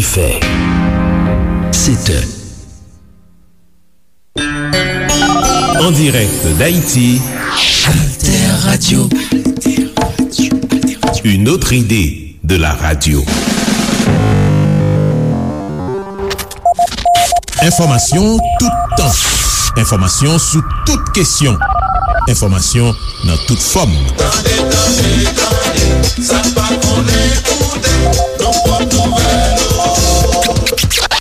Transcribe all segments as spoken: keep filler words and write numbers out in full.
Fè. Sete. En direct d'Haïti, Alter Radio. Une autre idée de la radio. Enfòmasyon toutan. Enfòmasyon sou tout kesyon. Enfòmasyon nan tout fòm. Tande, tande, tande, sa n pa konnen koute, nan pòt nouvèl yo.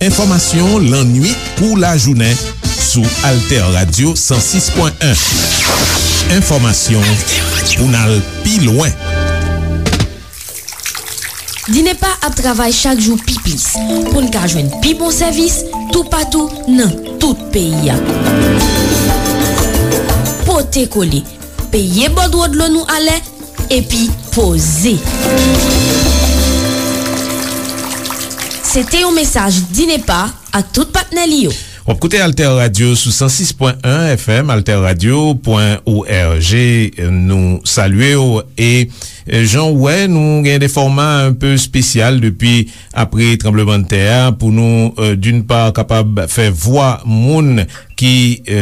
Enfòmasyon lannuit kou lajounen sou Alter Radio san sis pwen en. Enfòmasyon pou n al pi lwen. Dinepa ap travay chak jou pi plis pou n ka jwenn pi bon sèvis toupatou nan tout peyi a. Pote kole, peye bòdwo dlo nou alè, epi poze. Se te yon mesaj Dinepa ak tout patnè li yo. W ap koute Alter Radio sou san sis pwen en F M, alter radio pwen O R G. Nou salye w e, e, jan w wè, nou gen de fòma un peu espesyal depi apre tranblemanntè a pou nou, e, d'une part, kapab fè vwa moun ki, e,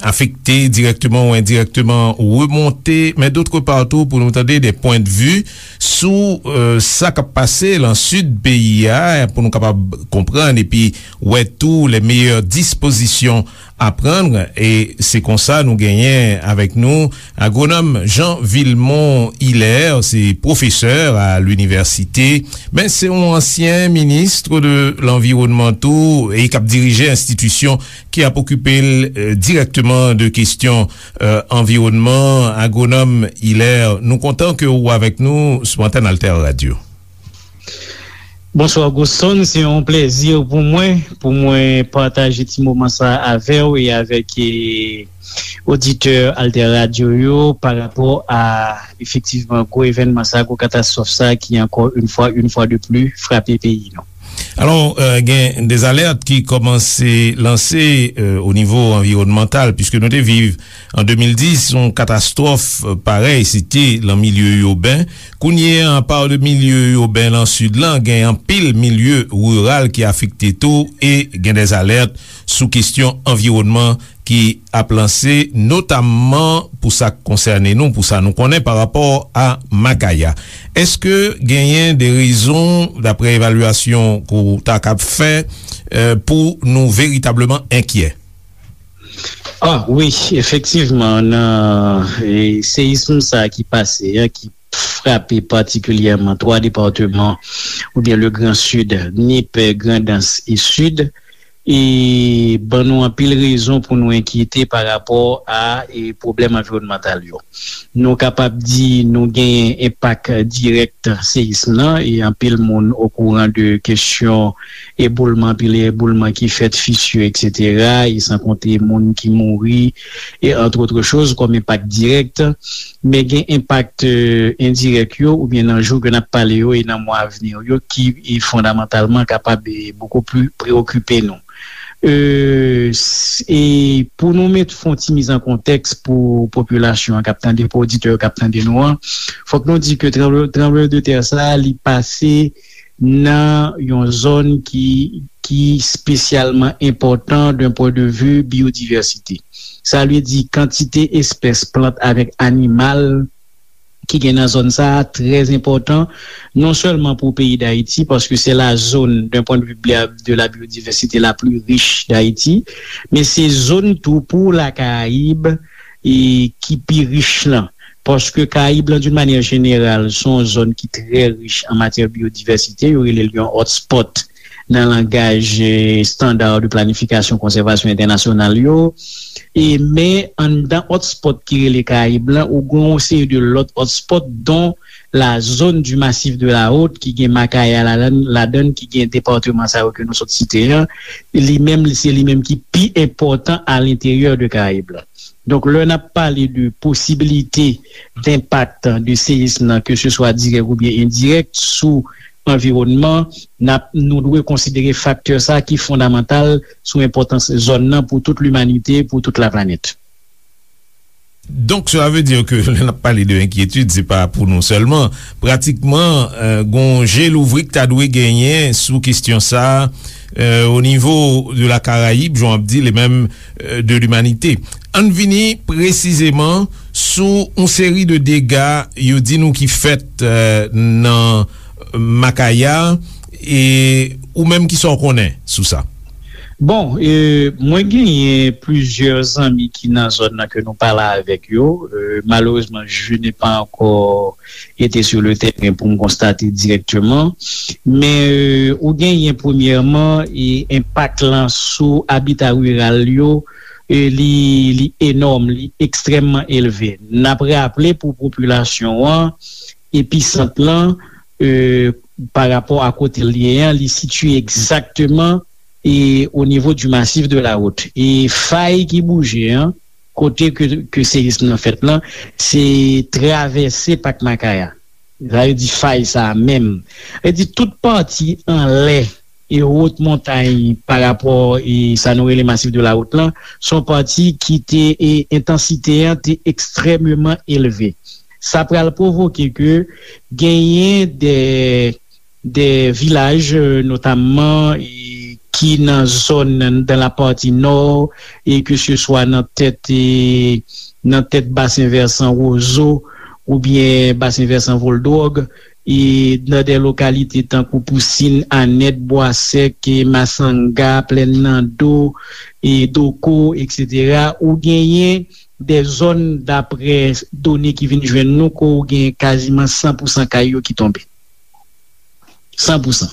afekte dirèkteman ou endirèkteman remonte, men d'autre part tou pou nou tande de pwen de vi sou, e, sa k ap pase lan sid peyi a, pou nou kapab konprann epi wè tou les meilleures dispositions à prendre. E se konsa nou genyen avèk nou agwonòm Jean Vilmont Hilaire, se pwofesè a linivèsite, men se yon ansyen minis de lanviwònman tou e k ap dirije enstitisyon ki ap okipe l, e, dirèkteman de kesyon, e, anviwònman. Agwonòm Hilaire, nou kontan ke w avèk nou sou antèn Alter Radio. Bonswa, Goston. Se yon plèzi pou mwen, pou mwen pataje ti moman sa avè w e avèk, e, oditè Alter Radio yo pa rapò a, efektivman, gwo evènman sa, gwo katastwòf sa ki ankò yon fwa, yon fwa de pli frape peyi nou. Alò, e, gen de alèt ki kòmanse lanse, e, o nivo anviwònmantal, piske nou te viv an de mil dis yon katastwòf, e, parèy, se te lan milye iben. Kounye a, pa de milye iben lan sid lan, gen anpil milye riral ki afekte tou e gen de alèt sou kesyon anviwònman ki ap lanse, notamman pou sa k konsène nou, pou sa nou konnen pa rapò a Makaya. Èske genyen de rezon, daprè evalyasyon ke w ta kab fè, e, pou nou veritableman enkyè? Ah, wi, efektivman, nan, e, seyism sa ki pase a, ki frape patikilyèman twa depatman, oubyen le Grand Sud, Nip, Grandans e Sid, e ban nou anpil rezon pou nou enkyete pa rapò a, e, pwoblèm anviwònmantal yo. Nou kapab di nou genyen enpak dirèk seyism nan, e anpil moun okouran de kesyon eboulman, anpil eboulman ki fèt, fisir, etsetera, e san konte moun ki mouri, e entre autres choses, kòm enpak dirèk. Men gen enpak, e, endirèk yo, oubyen nan jou ke n ap pale yo e nan mwa a vni yo, ki, e, fondamantalman kapab, e, beaucoup plus preokipe nou. E, s-, e pou nou met, fè yon ti miz an kontèks pou popilasyon an k ap tande, pou oditè yo k ap tande nou an, fòk nou di ke tranble-, tranblemanntè sa a, li pase nan yon zòn ki, ki espesyalman enpòtan d'un point de vue biodiversité. Sa vle di kantite espès plant avèk animal ki gen nan zòn sa a trè enpòtan, non sèlman pou peyi Dayiti, paske c'est la zone, d'un point de vue bia-, de la biodiversité, la plus riche d'Haïti, men se zòn tou pou Lakarayib e ki pi rich lan. Paske Karayib lan, d'une manière générale, se yon zòn ki trè rich an matyè biyodivèsite. Yo rele l yon hotspot nan langaj, eh, standard de planification conservation internationale yo. E men anndan hotspot ki rele Karayib lan, ou gen yon seri de lòt hotspot, dont la zone du Massif de la Haute, ki gen Makaya ladan, ladan, ki gen depatman sa yo ke nou sot site an. Li menm, se li menm ki pi enpòtan à l'intérieur de Karayib lan. Donk, lè n ap pale de posibilite, d'impact de seyism nan, ke se swa dirèk oubyen endirèk, sou anviwònman, n ap, nou dwe konsidere faktè sa ki fondamantal sou enpòtans zòn nan pou tout limanite, pou tout laplanèt. Donk, cela veut dire que lè n ap pale de enkyetid, se pa pou nou sèlman. Pratikman, euh, gon je louvri k ta dwe genyen sou kesyon sa a, euh, o nivo de la Karayib, jan w ap di, e menm, euh, de limanite. Ann vini presizeman sou yon seri de dega yo di nou ki fèt, euh, nan Makaya, e ou menm, kisa w konnen sou sa? Bon, e, mwen genyen plizyè zanmi ki nan zòn nan ke nou pale avèk yo. E, malerezman, je n'ai pas encore été sur le terrain pou m konstate dirèkteman. Men, e, ou genyen premyèman, e, enpak lan sou abita riral yo, e, li, li enòm, li ekstrèmman elve. N ap raple pou popilasyon an, episant lan, e, pa rapò a kote l ye an, li sitiye egzakteman, e, o nivo du massif de la Houte. E fay ki bouje an, kote ke, ke seyism nan fèt lan, se travèse Pak Makaya. Sa vle di fay sa a menm. Sa vle di tout pati anlè e wot montay pa rapò e sa nou rele masif de la Houte lan, se yon pati ki te, e entansite an te ekstrèmeman elve. Sa pral pwovoke ke genyen de, de vilaj, e, notamman, e, ki nan zòn nan, dan la pati nò, e ke se swa nan tèt, e, nan tèt basen vèsan Wozo, oubyen basen vèsan Voldwòg, e nan de lokalite tankou Pousin, Anèt, Bwasèk, e Masanga, Plèn Nando, e Doko, etsetera, ou genyen de zòn, daprè done ki vin jwenn nou, ke ou gen kaziman san pou san kay yo ki tonbe. San pou san.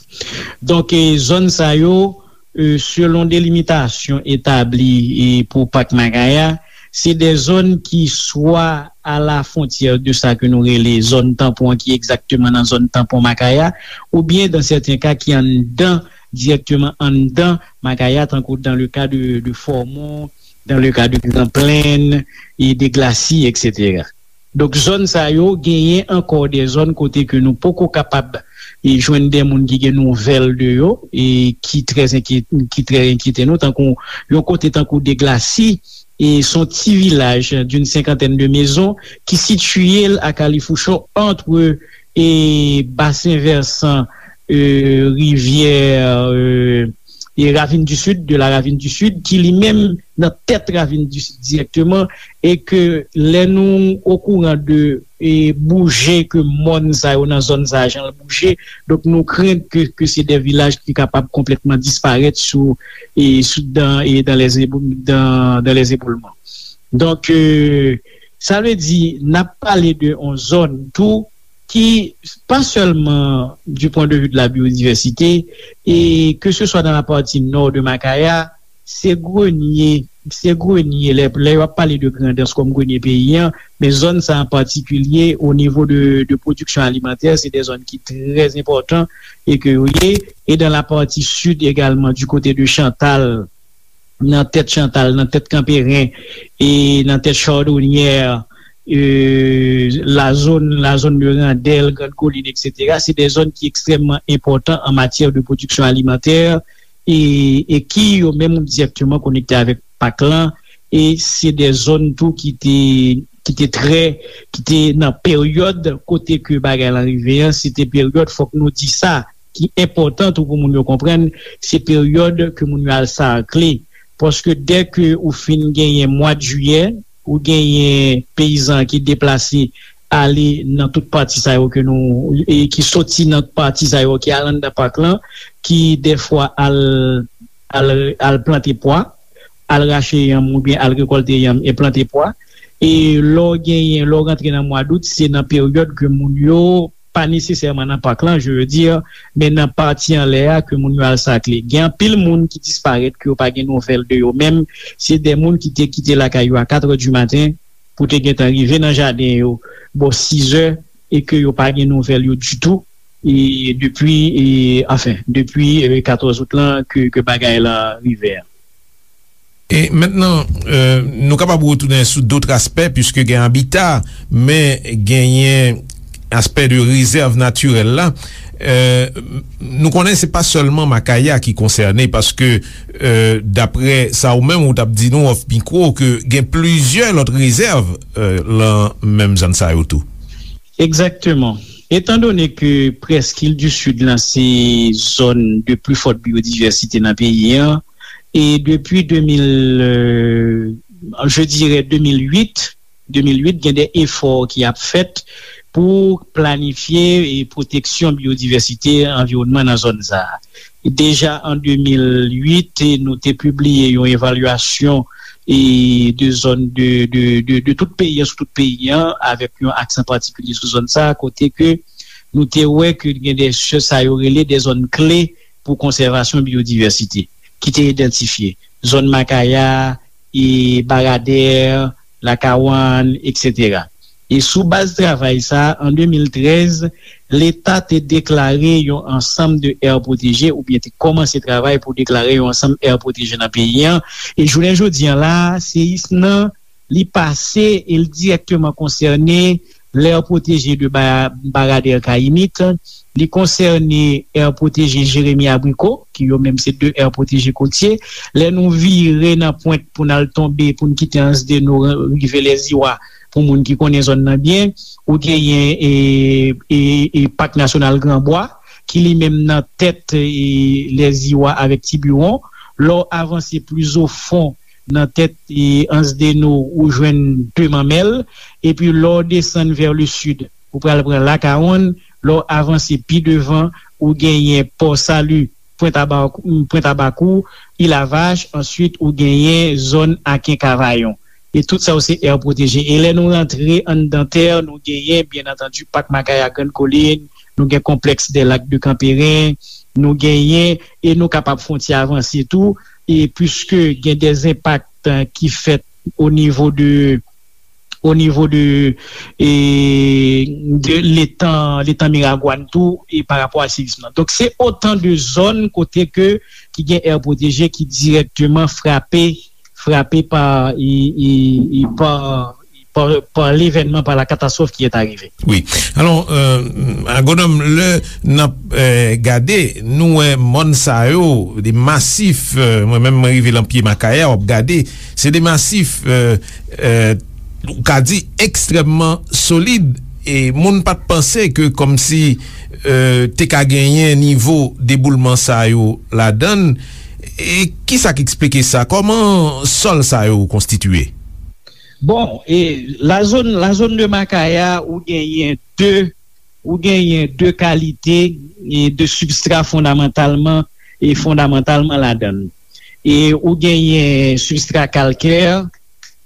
Donk, e, zòn sa yo, e, selon delimitasyon etabli, e, pou Pak Makaya, se de zòn ki swa a la fwontyè de sa ke nou rele zòn tanpon an, ki egzakteman nan zòn tanpon Makaya, oubyen, dan sèten ka, ki anndan, dirèkteman anndan Makaya, tankou dans le cas de, de Fòmon, dans le cas de Grand Plaine, e de Glacis, etsetera. Donk, zòn sa yo genyen ankò de zòn kote ke nou poko kapab, e, jwenn de moun ki gen nouvèl de yo, e ki trè enkyet-, ki trè enkyete nou, tankou yon kote tankou de Glacis, e se yon ti vilaj d'une cinquantaine de maisons ki sitiye l a kalifoucho ant, e, basen vèsan, e, rivyè, e, e Ravine du Sud, de la Ravine du Sud, ki li menm nan tèt Ravine du Sud dirèkteman, e ke lè nou okouran de, e, bouje ke mòn sa yo nan zòn sa a, jan l bouje, donk nou krent ke, ke se de vilaj ki kapab konplètman disparèt sou, e, sou, dan, e dan les ébou-, dan, dan les éboulements. Donk, e, sa vle di, n ap pale de yon zòn tou ki, pa sèlman du point de vue de la biodiversité, e ke se swa nan la pati nò de Makaya, se grenye, se grenye, lè, lè yo ap pale de Grandans kòm grenye peyi an, men zòn sa an patikilye, o nivo de, de pwodiksyon alimantè, se de zòn ki trè enpòtan e ke yo ye, e dan la pati sid egalman, du kote de Chantal, nan tèt Chantal, nan tèt Kanperen, e nan tèt Chardonnière, e, la zòn, la zòn de Randèl, Grande Colline, etsetera, se de zòn ki ekstrèmman enpòtan an matyè de pwodiksyon alimantè, e, e ki yo menm dirèkteman konekte avèk Pak lan, e se de zòn tou ki te, ki te trè, ki te nan peryòd kote ke bagay lan rive an, se te peryòd, fòk nou di sa, ki enpòtan tou pou moun yo konprann, se peryòd ke moun yo al sakle. Paske dè ke ou fin genyen mwa de jiyè, ou genyen peyizan ki deplase ale nan tout pati sa yo ke nou, e ki soti nan pati sa yo ki al anndan pak lan, ki dèfwa al, al, al plante pwa, al rache yanm oubyen al rekòlte yanm e plante pwa. E lè w genyen, lè w rantre nan mwa dout, se nan peryòd ke moun yo pa nesesèman nan pak lan, je veux dire, men nan pati anlè a ke moun yo al sakle. Gen anpil moun ki disparèt, ke yo pa gen nouvèl de yo menm. Se de moun ki te kite lakay yo a katrè di maten pou te gentan rive nan jaden yo bò sizè e ke yo pa gen nouvèl yo ditou. E depi, e, anfen, depi, e, katòz out lan ke, ke bagay lan rive a. E mentnan, euh, nou kapab retounen sou dòt aspè, piske gen abita, men genyen aspè de rezèv natirèl la, euh, nou konnen se pa sèlman Makaya ki konsène, paske, euh, daprè sa ou menm ou t ap di nou off mikwo, ke gen plizyè lòt rezèv, euh, lan menm zòn sa yo tou. Egzakteman. Etan done ke prèske Île du Sud lan se zòn de pli fòt biyodivèsite nan peyi an, e depi de mil, euh, je dirais de mil uit, de mil uit, gen de efò ki ap fèt pou planifye e pwoteksyon biyodivèsite anviwònman nan zòn sa a. Deja an de mil uit, nou te pibliye yon evalyasyon e de zòn de, de, de, de tout peyi an, sou tout peyi an, avèk yon aksan patikilye sou zòn sa a, kote ke nou te wè ke gen de, sa yo rele de zòn kle pou konsèvasyon biyodivèsite, ki te idantifye. Zòn Makaya, e Baradè, Lakawann, etsetera. E sou baz travay sa, an de mil trèz, Leta te deklare yon ansanm de aire protégée, oubyen te kòmanse travay pou deklare yon ansanm aire protégée nan peyi an. E jounen jodi an la, seyis nan, li pase e l dirèkteman konsène l'aire protégée de Ba-, Baradè Kayimit, li konsène aire protégée Jérémie Abricot, ki yo menm se de aire protégée kotye. Lè nou vire nan pwent pou n al tonbe, pou n kite Anse des Naux, rive Lèziwa, pou moun ki konnen zòn nan byen, ou genyen e, e, e Pak Nasyonal Gran Bwa, ki li menm nan tèt e, Lèziwa avèk Tibiwon. Lè w avanse plis o fon nan tèt e, Anse des Naux, ou jwenn De Manmèl. Epi lè w desann vers le sud, ou pral pran Lakawonn. Lè w avanse pi devan, ou genyen Pò Sali, Pwent Abakou, Pwent Abakou, Ilavach, answit ou genyen zòn Aken Kavayon. E tout sa yo se aire protégée. E lè nou rantre anndan tè, nou genyen, byen antandi, Pak Makaya Grann Kolin, nou gen Konplèks dè Lak de Kanperen, nou genyen, e nou kapab fè yon ti avanse tou, e piske gen de enpak, eh, ki fèt o nivo de, o nivo de, e, de letan, letan Miragwàn tou, e pa rapò a seyis lan. Donk, se otan de zòn kote ke, ki gen aire protégée ki dirèkteman frape, frape pa, e, e, e pa, pa, pa levènman, pa la katastwòf ki est arrivée. Wi. Alò, euh, Agwonòm, lè n ap, euh, gade, nou wè mòn sa yo, de masif, euh, mwen menm, mwen rive lan pye Makaya, w ap gade, se de masif, euh, euh, ou ka di ekstrèmman solid, e moun pa t panse ke kòmsi, euh, te ka genyen nivo deboulman sa yo ladan l. E kisa k eksplike sa? Kòman sòl sa yo konstitiye? Bon, e la zòn, la zòn de Makaya, ou genyen de, ou genyen de kalite e de sibstra fondamantalman, e fondamantalman ladan l. E ou genyen sibstra kalkè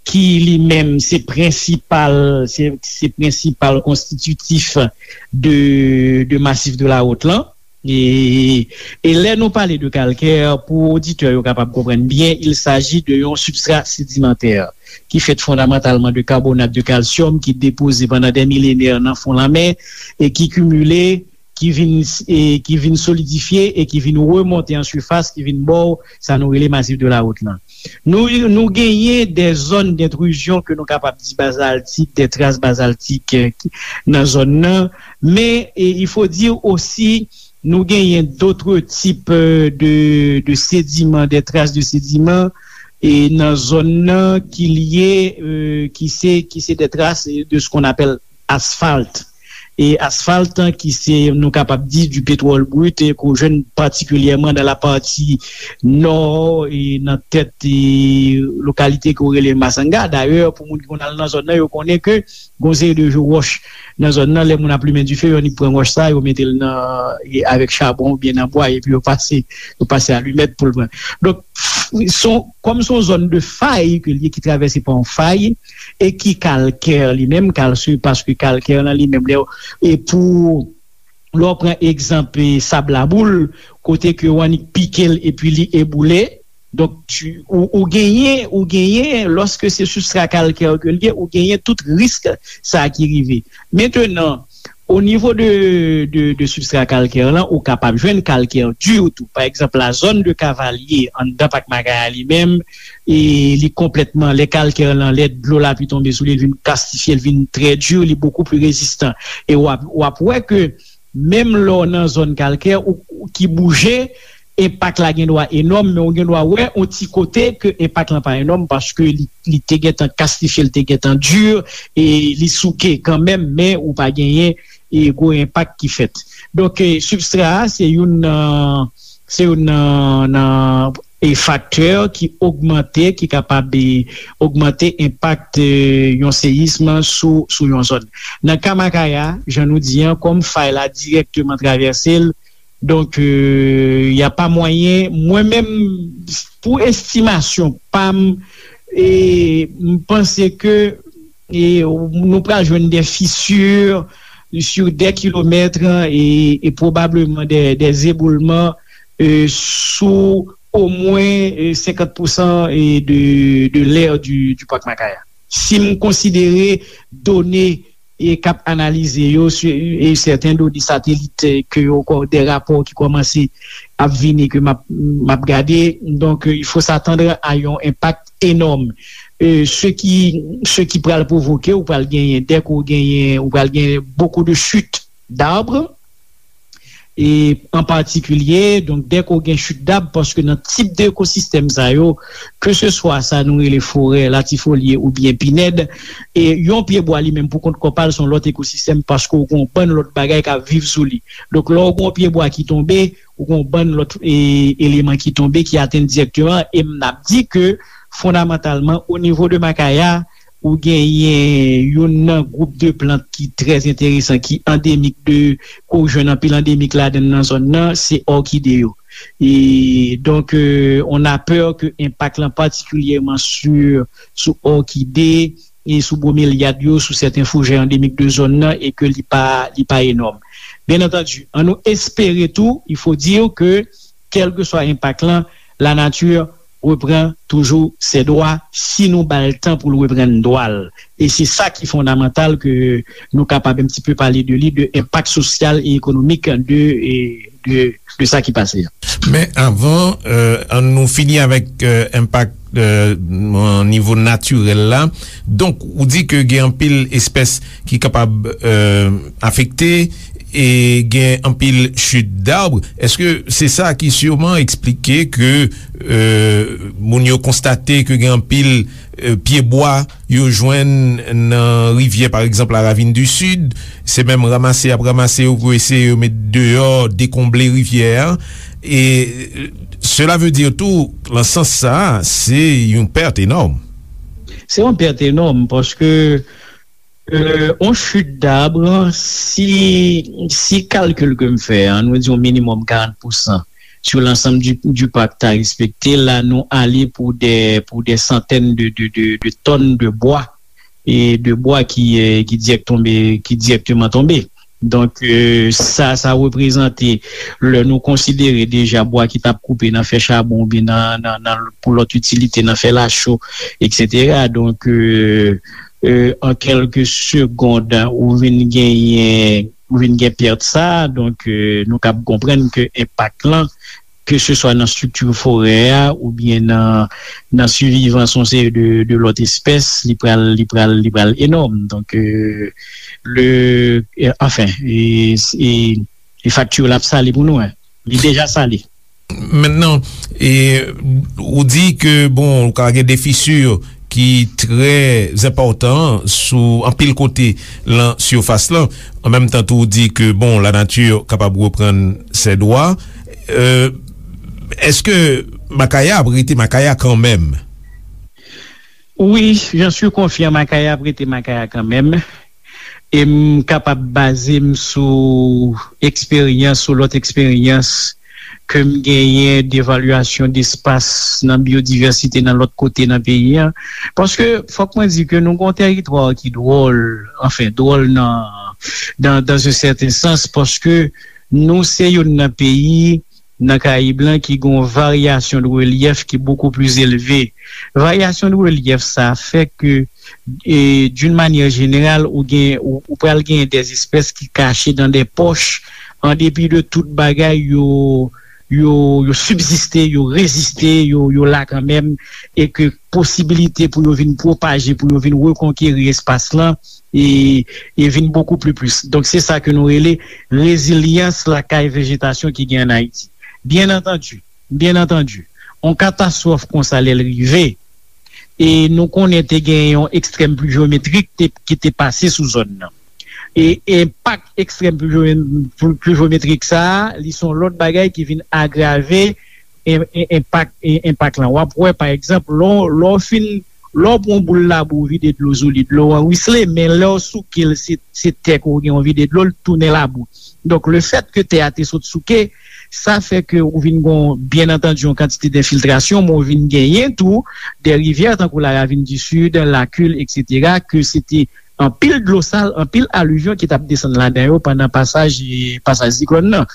ki li menm se prensipal, se, se prensipal konstititif de, de masif de la Haute lan. E, e lè nou pale de kalkè, pou oditè yo kapab konprann byen, il s'agit de yon sibstra sedimantè ki fèt fondamantalman de karbonat de kalsyòm ki depoze pandan dè milenè nan fon lanmè e ki kimile, ki vin, e ki vin solidifye e ki vin remonte an sifas, ki vin ba w sa nou rele masif de la Haute lan. Nou, nou genyen de zòn d'intrusion ke nou kapab di bazaltik, de tras bazaltik, eh, nan zòn nan, men, e, il faut dire aussi, nou genyen d'autres types, euh, de, de sédiments, des traces de sédiments, e nan zòn nan ki lye, euh, ki se, ki se de tras de ce qu'on appelle asfalt. E asfalt, ki se, nou kapab di, du pétrole brut, e ke w jwenn patikilyèman dans la partie nord, e nan tèt, e lokalite ke w rele Masanga. Dayè, pou moun ki konn al nan zòn nan, yo konnen ke gon seri de wòch nan zòn nan, lè moun ap limen dife, yo annik pran wòch sa, yo mete l nan, e avèk chabon oubyen nan bwa, epi yo pase, yo pase alimèt pou l pran. Donk, son, kòm se yon zòn de fay ke l ye, ki travèse pa yon fay, e ki kalkè li menm, kalsye, paske kalkè lan li menm, lè, e pou, lè w pran egzanp, e sab laboul, kote ke w annik pike l epi li eboule, donk, tu, ou, ou genyen, ou genyen, lòske se sibstra kalkè ke l ye, ou genyen tout risk sa ki rive. Mentenan, O nivo de, de, de sibstra kalkè lan, ou kapab jwenn kalkè di tou. Pa egzanp, la zòn de Kavalye, anndan Pak Makaya li menm, e li konplètman, lè kalkè lan, lè dlo lapli tonbe sou li, li vin kastifye, li vin trè di, li bokou pli rezistan. E w ap, w ap wè ke menm lè w nan zòn kalkè ou, ou ki bouje, enpak la gen dwa enòm, men ou gen dwa wè yon ti kote ke enpak lan pa enòm paske li, li te gentan kastifye, li te gentan di, e li souke kanmenm, men ou pa genyen e gwo enpak ki fèt. Donk, e, sibstra a, se youn nan, se youn nan, nan, e, faktè ki ogmante, ki kapab, e, ogmante enpak, e, yon seyism sou, sou yon zòn. Nan ka Makaya, jan nou di an, kòm fay la dirèkteman travèse l, donk, e, y a pa mwayen, mwen menm, pou estimasyon pa m, e, m panse ke e nou pral jwenn de fisir sur des kilomètres e, e pwobableman de, de eboulman e, sou omwen e, senkant pousan e, de, de lè di, di Pak Makaya. Si m konsidere done e k ap analize yo, e sèten done satelit e, ke yo, de rapò ki kòmanse ap vini ke m ap, m ap gade, donk, e, il faut s'attendre à yon enpak enòm. E, se ki, se ki pral pwovoke, ou pral genyen, dèk ou genyen, ou pral genyen beaucoup de chutes d'arbres, e an patikilye, donk, dèk ou gen chute d'arbres, paske nan tip de ekosistèm sa yo, ke se swa sa nou rele forè latifolye oubyen pinèd, e yon pye bwa li menm pou kont kò pa l se yon lòt ekosistèm, paske ou gen yon bann lòt bagay k ap viv sou li. Donk, lè ou gen yon pye bwa ki tonbe, ou gen yon bann lòt e, eleman ki tonbe, ki atenn dirèkteman, e m ap di ke fondamantalman, o nivo de Makaya, ou genyen youn nan gwoup de plant ki trè enteresan, ki andemik de, ke w jwenn anpil andemik ladan nan zòn nan, se òkide yo. E donk, e, on a peur ke enpak lan patikilyèman sou, sou òkide, e sou bromelyad yo, sou sèten foujè andemik de zòn nan, e ke li pa, li pa enòm. Byen antandi, an nou espere tou, il faut dire que, kèlkeswa enpak lan, lanati repran toujou ses droits si nou ba l tan pou l reprann dwa l. E se sa ki fondamantal ke nou kapab un petit peu pale de li, de enpak sosyal e ekonomik de, e de, de sa ki pase a. Men avan, euh, an nou fini avèk, euh, enpak, euh, nan nivo natirèl la. Donk, ou di ke gen anpil espès ki kapab, euh, afekte e gen anpil chute d'arbres. Èske se sa ki siman eksplike ke, euh, moun yo konstate ke gen anpil, euh, pyebwa yo jwenn nan rivyè, pa egzanp, la Ravine du Sud, se menm ranmase y ap ranmase yo pou eseye yo met deyò, dekonble rivyè a. E, euh, cela veut dire tou, nan sans sa a, se yon pèt enòm. Se yon pèt enòm, paske, euh, on chute d'arbre, si, si kalkil ke m fè an, nou di yon minimòm karant pousan sur l'ensemble du, du parc ta respekte, la nou ale pou de, pou de santèn de, de, de, de tòn de bwa, e de bwa ki, euh, ki dirèk tonbe, ki dirèkteman tonbe. Donk, euh, sa, sa reprezante, lè nou konsidere deja bwa ki t ap koupe nan fè chabon oubyen nan, nan, nan, pou lòt itilite, nan fè lacho, etsetera. Donk, euh, euh, an kèlke segond, ou vin genyen, ou vin gen pèt sa, donk, euh, nou kab konprann ke enpak lan, ke se swa nan estrikti forè a oubyen nan, nan sivivans yon seri de, de lòt espès, li pral, li pral, li pral enòm. Donk, euh, le, euh, anfen, e, e, e fakti l ap sale pou nou, en. Li deja sale. Mentnan, e, ou di ke, bon, ou ka gen de fisi ki trè enpòtan sou anpil kote lan sifas lan. An menm tan tou, ou di ke, bon, lanati kapab reprann ses droits. Euh, èske Makaya ap rete Makaya kanmenm? Wi, j'en suis confiant, Makaya ap rete Makaya kanmenm. E m kapab baze m sou eksperyans, sou lòt eksperyans ke m genyen devalyasyon despas nan byodivèsite nan lòt kote nan peyi a. Paske fòk mwen di ke nou gen yon tèritwa ki dwòl, anfen, dwòl nan, dans, dans un certain sens, paske nou se youn nan peyi nan Karayib lan ki gen yon varyasyon de relyèf ki beaucoup plus élevé. Varyasyon de relyèf sa a fè ke E d'une manière générale, ou gen, ou, ou pral gen des espèces ki kache dans des poches, an depi de tout bagay, yo, yo, yo sibziste, yo reziste, yo, yo la kanmenm, e ke posibilite pou yo vin pwopaje, pou yo vin rekonkeri espas lan, e, e vin bokou pli plis. Donk, se sa ke nou rele rezilyans lakay vejetasyon ki gen an Ayiti. Byen antandi, byen antandi, yon katastwòf konsa lè l rive, e nou konnen te gen yon ekstrèm pluvyometrik te, ki te pase sou zòn nan. E enpak ekstrèm pluvyo-, pluvyometrik sa a, li se yon lòt bagay ki vin agrave en-, en-, enpak, en-, enpak lan. W ap wè, pa egzanp, lè w, lè w fin, lè w pran yon boul labou, w vide dlo sou li, dlo an wisle, men lè w souke l, se, se tè ke w gen, w vide dlo, l tounen labou. Donk, lefètke tè a te sot souke, sa fè ke ou vin gon, byen antandi, yon kantite denfiltrasyon, men ou vin genyen tou de rivyè tankou la Ravine du Sud, Lakil, etsetera, ke se te anpil dlo sal, anpil alivyon ki t ap desann ladan yo pandan pasaj, pasaj siklòn nan.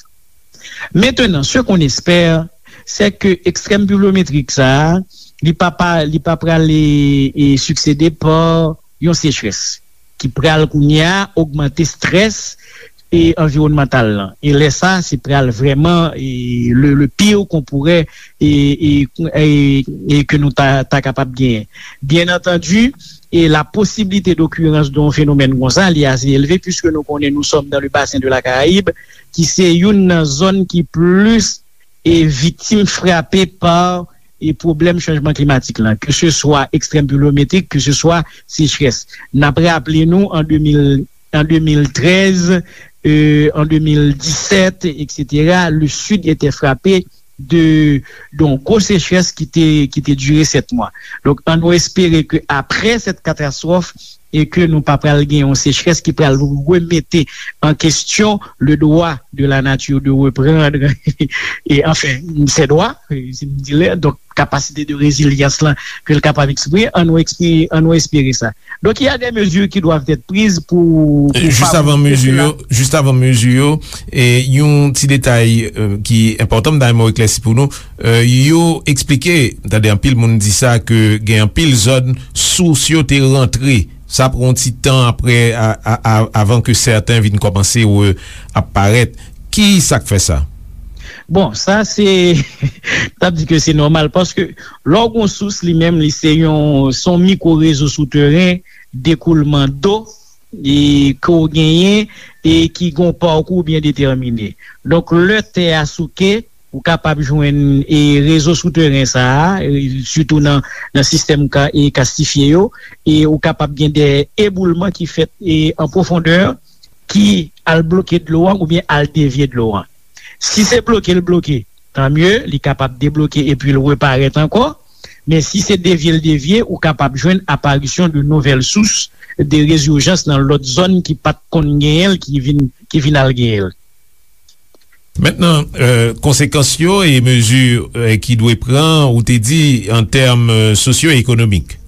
Mentenan, ce qu'on espère, c'est que ekstrèm pluvyometrik sa a, li pa, pa, li pa pral, e, e, siksede pa yon sechrès ki pral kounye a ogmante strès e anviwònmantal lan. E lè sa, se pral vrèman, e, le, le pire qu'on pourrait, e, e, e, e ke nou ta, ta kapab genyen. Byen antandi, e la posibilite dokirans de yon fenomèn konsa, li ase elve, puiske nou konnen nous sommes dans le bassin de la Caraïbe, ki se youn nan zòn ki plis e viktim frape pa e pwoblèm chanjman klimatik lan, ke se swa ekstrèm pluvyometrik, ke se swa sechrès. N ap raple nou, an de mil, an de mil trèz, euh, an de mil disèt, etsetera, le Sud était frappé de, de yon gwo sechrès ki te, ki te dire sèt mwa. Donk, ann nou espere ke apre sèt katastwòf, e ke nou pa pral gen yon sechrès ki pral remete an kesyon le droit de la nature de reprendre, e, anfen, ses droits, e, si m di lè, donk, kapasite de rezilyans lan ke l kapab eksprime, ann nou eksprime, ann nou espere sa. Donk, il y a des mesures qui doivent être prises pou, pou Jis avan favorize mezi cela. Yo, jis avan mezi yo, e yon ti detay, e, ki enpòtan, m ta renmen w eklèsi pou nou. E, yo eksplike, tande anpil moun di sa, ke gen anpil zòn sous yo te rantre. Sa pran yon ti tan apre, a, a, a, avan ke sèten vin kòmanse re-, ap parèt. Ki sa k fè sa? Bon, sa se, m t ap di ke se nòmal, paske lè w gon sous, li menm, li se yon, se yon mikwo rezo souteren dekoulman do, e ke w genyen, e ki gon pakou byen detèmine. Donk, lè tè a souke, ou kapab jwenn, e, rezo souteren sa a, e, sitou nan, nan sistèm ka, e, kastifye yo, e ou kapab gen de eboulman ki fèt, e, an pwofondè, ki al bloke dlo an oubyen al devye dlo an. Si se bloke l bloke, tan mye, li kapab debloke epi l reparèt ankò. Men si se devye l devye, ou kapab jwenn aparisyon de nouvèl sous de rezijans nan lòt zòn ki pa t konn genyen l, ki vin, ki vin al genyen l. Mentnan, e, konsekans yo e mezi, e, ki dwe pran, ou te di, an tèm, e, sosyo-ekonomik.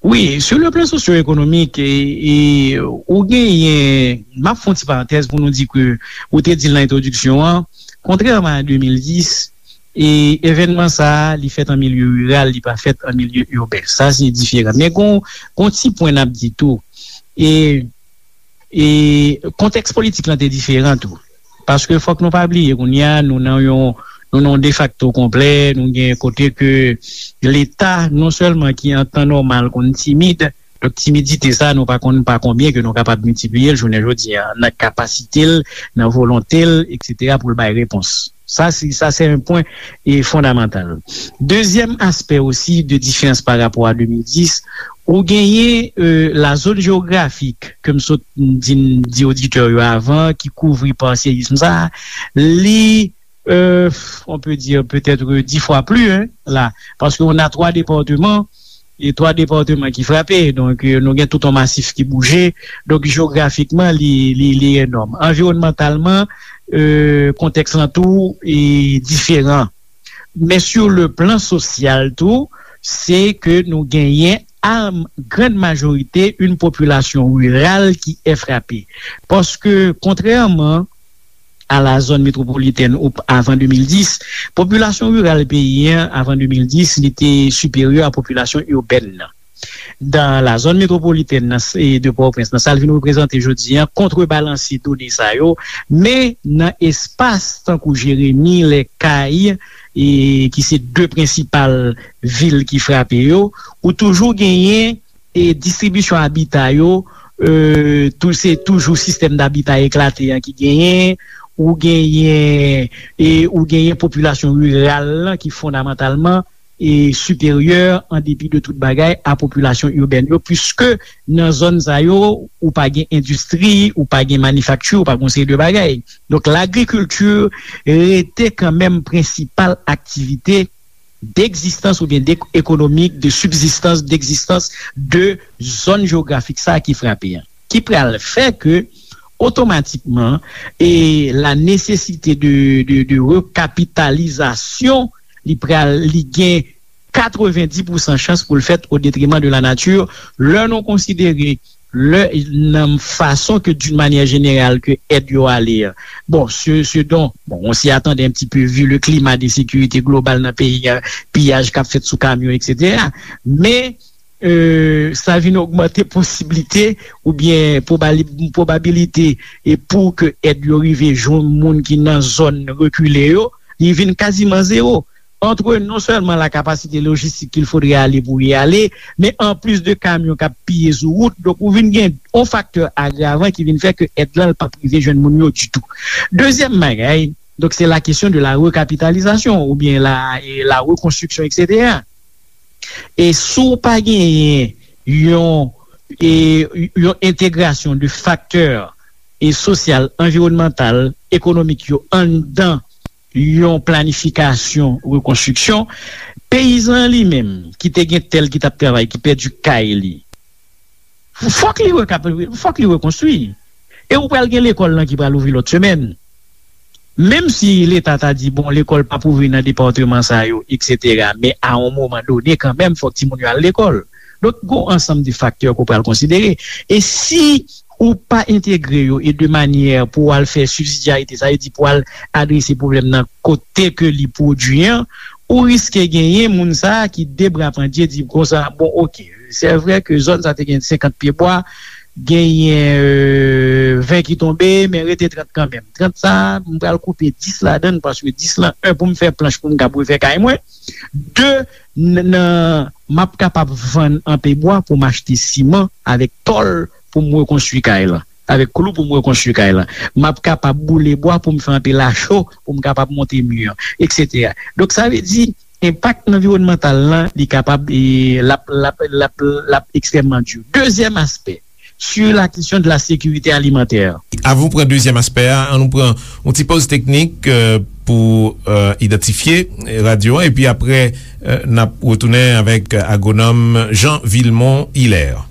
Wi, sur le plan socio-économique, e, e, ou genyen, m ap fè yon ti parantèz pou nou di ke, ou te di l nan entwodiksyon an, kontrèman a de mil dis, e, evènman sa a, li fèt an milye riral, li pa fèt an milye iben. Sa, se diferan. Men gon, gon ti pwen n ap di tou. E, e kontèks politik lan te diferan tou. Paske fòk nou pa bliye, kounye a, nou nan yon, nou nan yon defakto konplè, nou gen kote ke Leta, non sèlman ki an tan nòmal konn timid, donk timidite sa, nou pa konn pa konbyen ke nou kapab miltipliye l jounen jodi a, nan kapasite l, nan volonte l, etsetera, pou l bay repons. Sa, se, sa, se yon pwen, e, fondamantal. Dezyèm aspè osi de diferans pa rapò a de mil dis, ou genyen, e, la zòn jewografik, ke m sot di, di oditè yo avan, ki kouvri pa seyism sa, li, e, on peut dire peut-être dix fois plus, hein, la. Parce qu'on a trois départements, e twa depatman ki frape. Donk, e, nou gen tout yon masif ki bouje. Donk, jewografikman, li, li, li enòm. Anviwònmantalman, e, kontèks lan tou, e, diferan. Men sur le plan sosyal tou, se ke nou genyen, a grande majorité, une population rurale qui est frappée. Paske, kontrèman a la zòn metwopolitèn ou p-, avan de mil dis, popilasyon riral peyi an, avan de mil dis, li te siperyè a popilasyon ibèn nan. dan la zòn metwopolitèn nan, e de Pòtoprens, nan sa l vin reprezante jodi a, kontrebalanse done sa yo, men nan espas tankou Jeremi, Lèkay, e ki se de prensipal vil ki frape yo, ou toujou genyen e distribisyon abita yo, e, tou, se toujou sistèm dabita eklate an ki genyen, ou genyen, e, ou genyen popilasyon riral lan ki fondamantalman e siperyè, an depi de tout bagay, a popilasyon ibèn yo, piske nan zòn sa yo, ou pa gen endistri, ou pa gen manifakti, ou pa gen yon seri de bagay. Donk, lagrikilti rete kanmenm prensipal aktivite degzistans oubyen de, ekonomik, de sibzistans, degzistans de zòn jewografik sa a ki frape an. Ki pral fè ke, otomatikman, e la nesesite de, de, de rekapitalizasyon, li pral, li gen katrevenndis pousan chans pou l fèt o detreman de la nati, lè nou konsidere lè, nan fason ke, d'une manière générale, ke èd yo ale a. Bon, ce, ce dont, bon, on s'y attendait un petit peu vu le climat d'insécurité global nan peyi a, piyaj k ap fèt sou kamyon, et cetera. Men, e, sa vin ogmante posiblite oubyen pwobali-, pwobabilite e pou ke èd yo rive jwenn moun ki nan zòn rekile yo, li vin kaziman zewo. Entre non sèlman la kapasite lojistik ke l fodre ale pou y ale, men an plis de kamyon k ap piye sou wout, donk ou vin gen yon faktè agravan ki vin fè ke èd lan l p ap rive jwenn moun yo ditou. Dezyèm bagay, donk se la kesyon de la rekapitalizasyon oubyen la, e la rekonstriksyon, et cetera. E si w pa genyen yon, e, yon entegrasyon de faktè e sosyal, anviwònmantal, ekonomik yo anndan yon planifikasyon rekonstriksyon, peyizan an li menm, ki te gen tè l ki t ap travay, ki pèdi kay li, fòk li rekap-, fòk li rekonstwi. E ou pral gen lekòl lan ki pral ouvri lòt semèn. Menm si Leta ta di, bon, lekòl p ap ouvri nan depatman sa yo, et cetera, men a yon moman done, kanmenm, fòk timoun yo al lekòl. Donk, gon ansanm de faktè ke w pral konsidere. E si ou pa entegre yo e de manyè pou w al fè sibsidyarite, sa vle di pou w al adrese pwoblèm nan kote ke li pwodui an, ou riske genyen moun sa a ki de bra pandye di konsa, bon, oke, se vre ke zòn sa te gen senkant pye bwa, genyen, e, ven ki tonbe, men rete trant kanmenm. Trant sa a, m pral koupe dis ladan l, paske dis lan, en, pou m fè planch pou m kab refè kay mwen, de, n-, nan, m ap kapab vann anpe bwa pou m achte siman avèk tòl pou m rekonstwi kay lan, avèk klou pou m rekonstwi kay lan. M ap kapab boule bwa pou m fè anpe lacho pou m kapab monte mi an, et cetera. Donk, sa vle di, enpak anviwònmantal lan, li kapab, e, l ap, l ap, l ap, l ap ekstrèmman di. Dezyèm aspè, sur la question de la sécurité alimentaire. Avan nou pran dezyèm aspè a, ann nou pran yon ti pòz teknik, e, pou, e, idantifye radyo a, epi apre, e, n ap retounen avèk agwonòm Jean Vilmont Hilaire.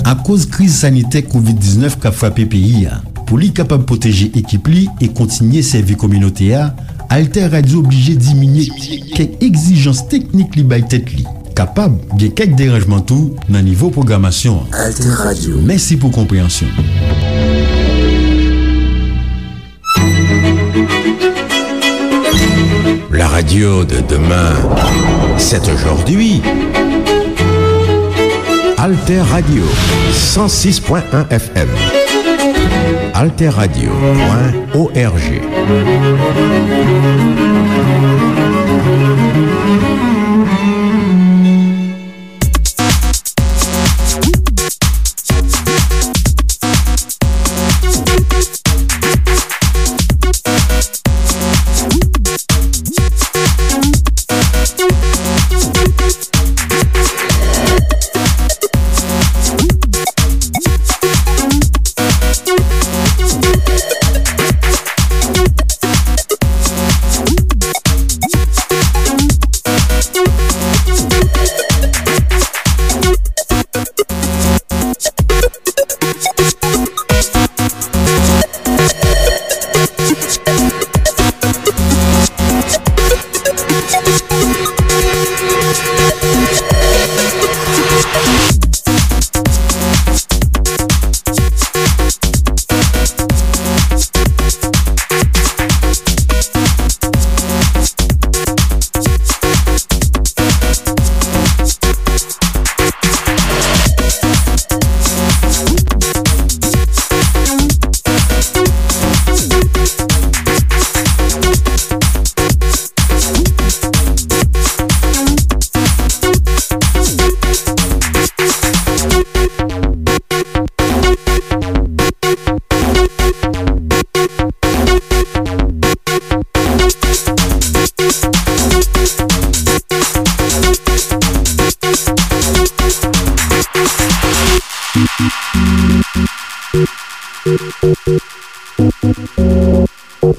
Akoz kriz sanitè kovid diznèf k ap frape peyi a, pou li kapab pwoteje ekip li e kontinye sèvi kominote a, Alter Radio oblije diminye kèk egzijans teknik li bay tèt li. Kapab gen kèk deranjman tou nan nivo pwogramasyon an. Alter Radio. Mèsi pou konpreyansyon. La radio de demain, c'est aujourd'hui. Alter Radio, cent six point un F M. Alter Radio point O R G.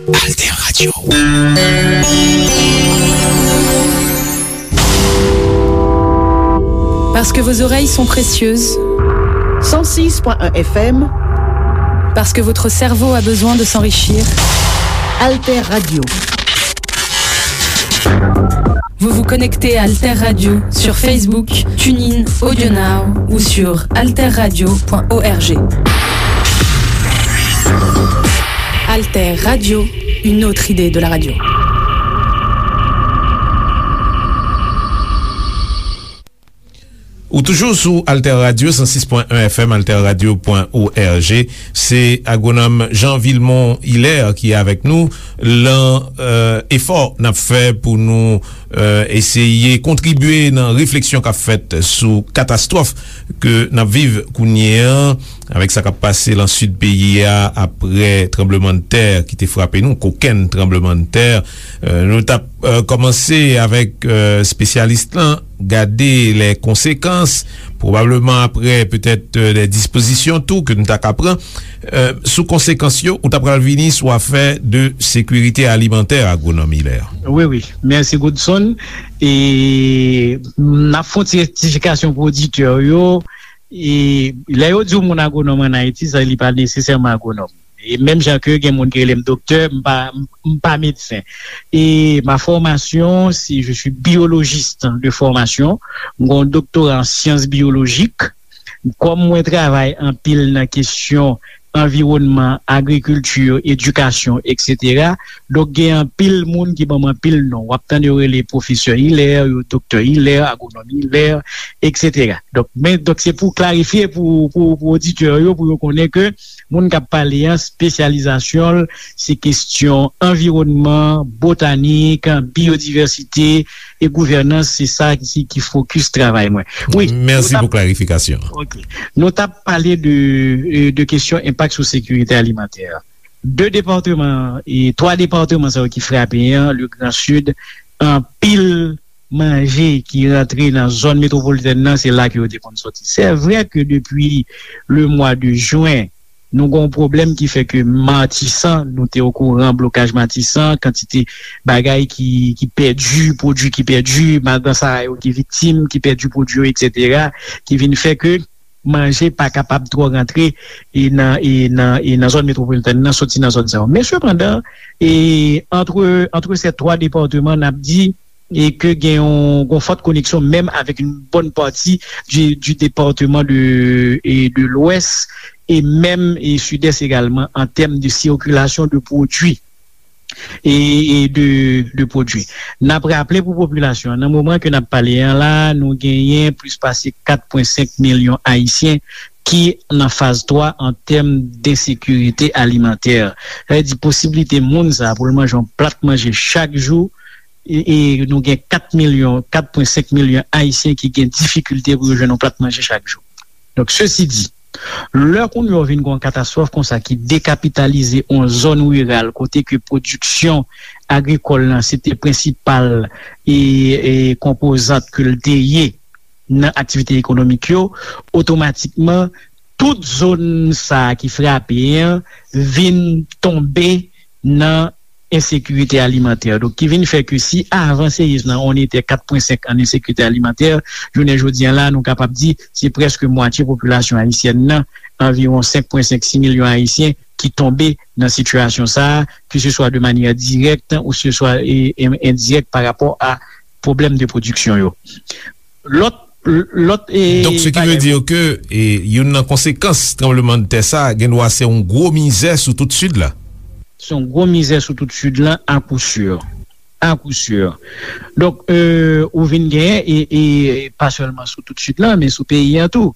Alter Radio. Parce que vos oreilles sont précieuses. Cent six point un F M. Parce que votre cerveau a besoin de s'enrichir. Alter Radio. Vous vous connectez à Alter Radio sur Facebook, TuneIn, AudioNow ou sur alter radio point org. Alter Radio, une autre idée de la radio. Ou toujou sou Alter Radio, san sis pwen en F M, alter radio pwen org. Se agwonòm Jean Vilmont Hilaire ki avèk nou lan, euh, efò n ap fè pou nou, euh, eseye kontribye nan refleksyon k ap fèt sou katastwòf ke n ap viv kounye an, avèk sa k ap pase lan sid peyi a apre tranblemanntè ki te frape nou, kokenn tranblemanntè. Euh, nou t ap, euh, kòmanse avèk, euh, espesyalis lan, gade les conséquences, pwobableman apre, petèt, euh, des dispozisyon tou ke nou ta ka pran, euh, sou konsekans yo, ou ta pral vini sou afè de sekirite alimantè, agwonòm Hilaire. Wi, wi. Mèsi, Godson. E n ap fè yon ti rektifikasyon pou oditè yo. E lè yo di yon moun agwonòm ann Ayiti, sa, li pa nesesèman agwonòm. E menm jan ke gen moun ki rele m doktè, m pa, m, m pa medsen. E ma formation, c'est, je suis biologiste de formation. Mwen gen yon doktora an syans biyolojik. Kòm mwen travay anpil nan kesyon anviwònman, agrikilti, edikasyon, et cetera. Donk, gen anpil moun ki ban m anpil non. W ap tande yo rele pwofesè Hilaire, yo doktè Hilaire, agwonòm Hilaire, et cetera. Donk, men, donk, se pou klarifye pou, pou, pou oditè yo, pou yo konnen ke moun k ap pale an, espesyalizasyon l, se kesyon anviwònman, botanik, biyodivèsite e gouvènans, se sa ki, ki fokis travay mwen. Wi, mèsi pou klarifikasyon. Ok. Nou t ap pale de, euh, de kesyon enpak sou sekirite alimantè. De depatman, e twa depatman sa yo ki frape an, le Grand Sud, anpil manje ki rantre nan zòn metwopolitèn nan, se la ke yo te konn sòti. Se vre ke depi le mwa de jen, nou gen yon pwoblèm ki fè ke Matisan, nou te okouran blokaj Matisan, kantite bagay ki, ki pèdi, pwodui ki pèdi, madan sa yo ki viktim, ki pèdi pwodui yo, et cetera, ki vin fè ke manje pa kapab twò rantre e nan, e nan, e nan zòn metwopolitèn nan, soti nan zòn sa yo. Men sepandan, e antre, antre se twa depatman, n ap di, e ke gen yon, yon fòt koneksyon menm avèk yon bòn pati du, du département de, e de l'Ouest, e menm, e Sidès egalman, an tèm de sikilasyon de pwodui e, e de, de pwodui. N ap raple pou popilasyon an, nan moman ke n ap pale an la, nou genyen plis pase kat pwen senk milyon Ayisyen ki nan faz twa an tèm densekirite alimantè. Sa vle di posiblite moun sa pou l manje yon plat manje chak jou, e, e nou gen kat milyon, kat pwen senk milyon Ayisyen ki gen difikilte pou yo jwenn yon plat manje chak jou. Donk, sesi di, lè kounye a w vin gen yon katastwòf konsa ki dekapitalize yon zòn riral kote ke pwodiksyon agrikòl lan se te prensipal e, e konpozant ke l te ye nan aktivite ekonomik yo, otomatikman, tout zòn sa a ki frape an vin tonbe nan ensekirite alimantè. Donk, ki vin fè ke si avan se ye nan on etè kat pwen senk an ensekirite alimantè, jounen jodi an la, nou kapab di se prèske mwatye popilasyon ayisyèn nan, anviwon senk pwen senk, sis milyon Ayisyen ki tonbe nan sitiyasyon sa a, ke se swa de manyè dirèk ou se swa, e, e, endirèk pa rapò a pwoblèm de pwodiksyon yo. Lòt, lòt, e, Donk, ce qui veut dire que, e, youn nan konsekans tranblemanntè sa a, gen dwa se yon gwo mizè sou tout Sid la. Se yon gwo mizè sou tout Sid la, à coup sûr. À coup sûr. Donk, e, ou vin genyen, e, e pa sèlman sou tout Sid la, men sou peyi an tou.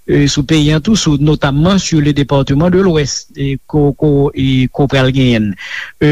E, sou peyi an tou, sou, notamman sur le département de l'Ouest, e, ko, ko, e, ko pral genyen. E,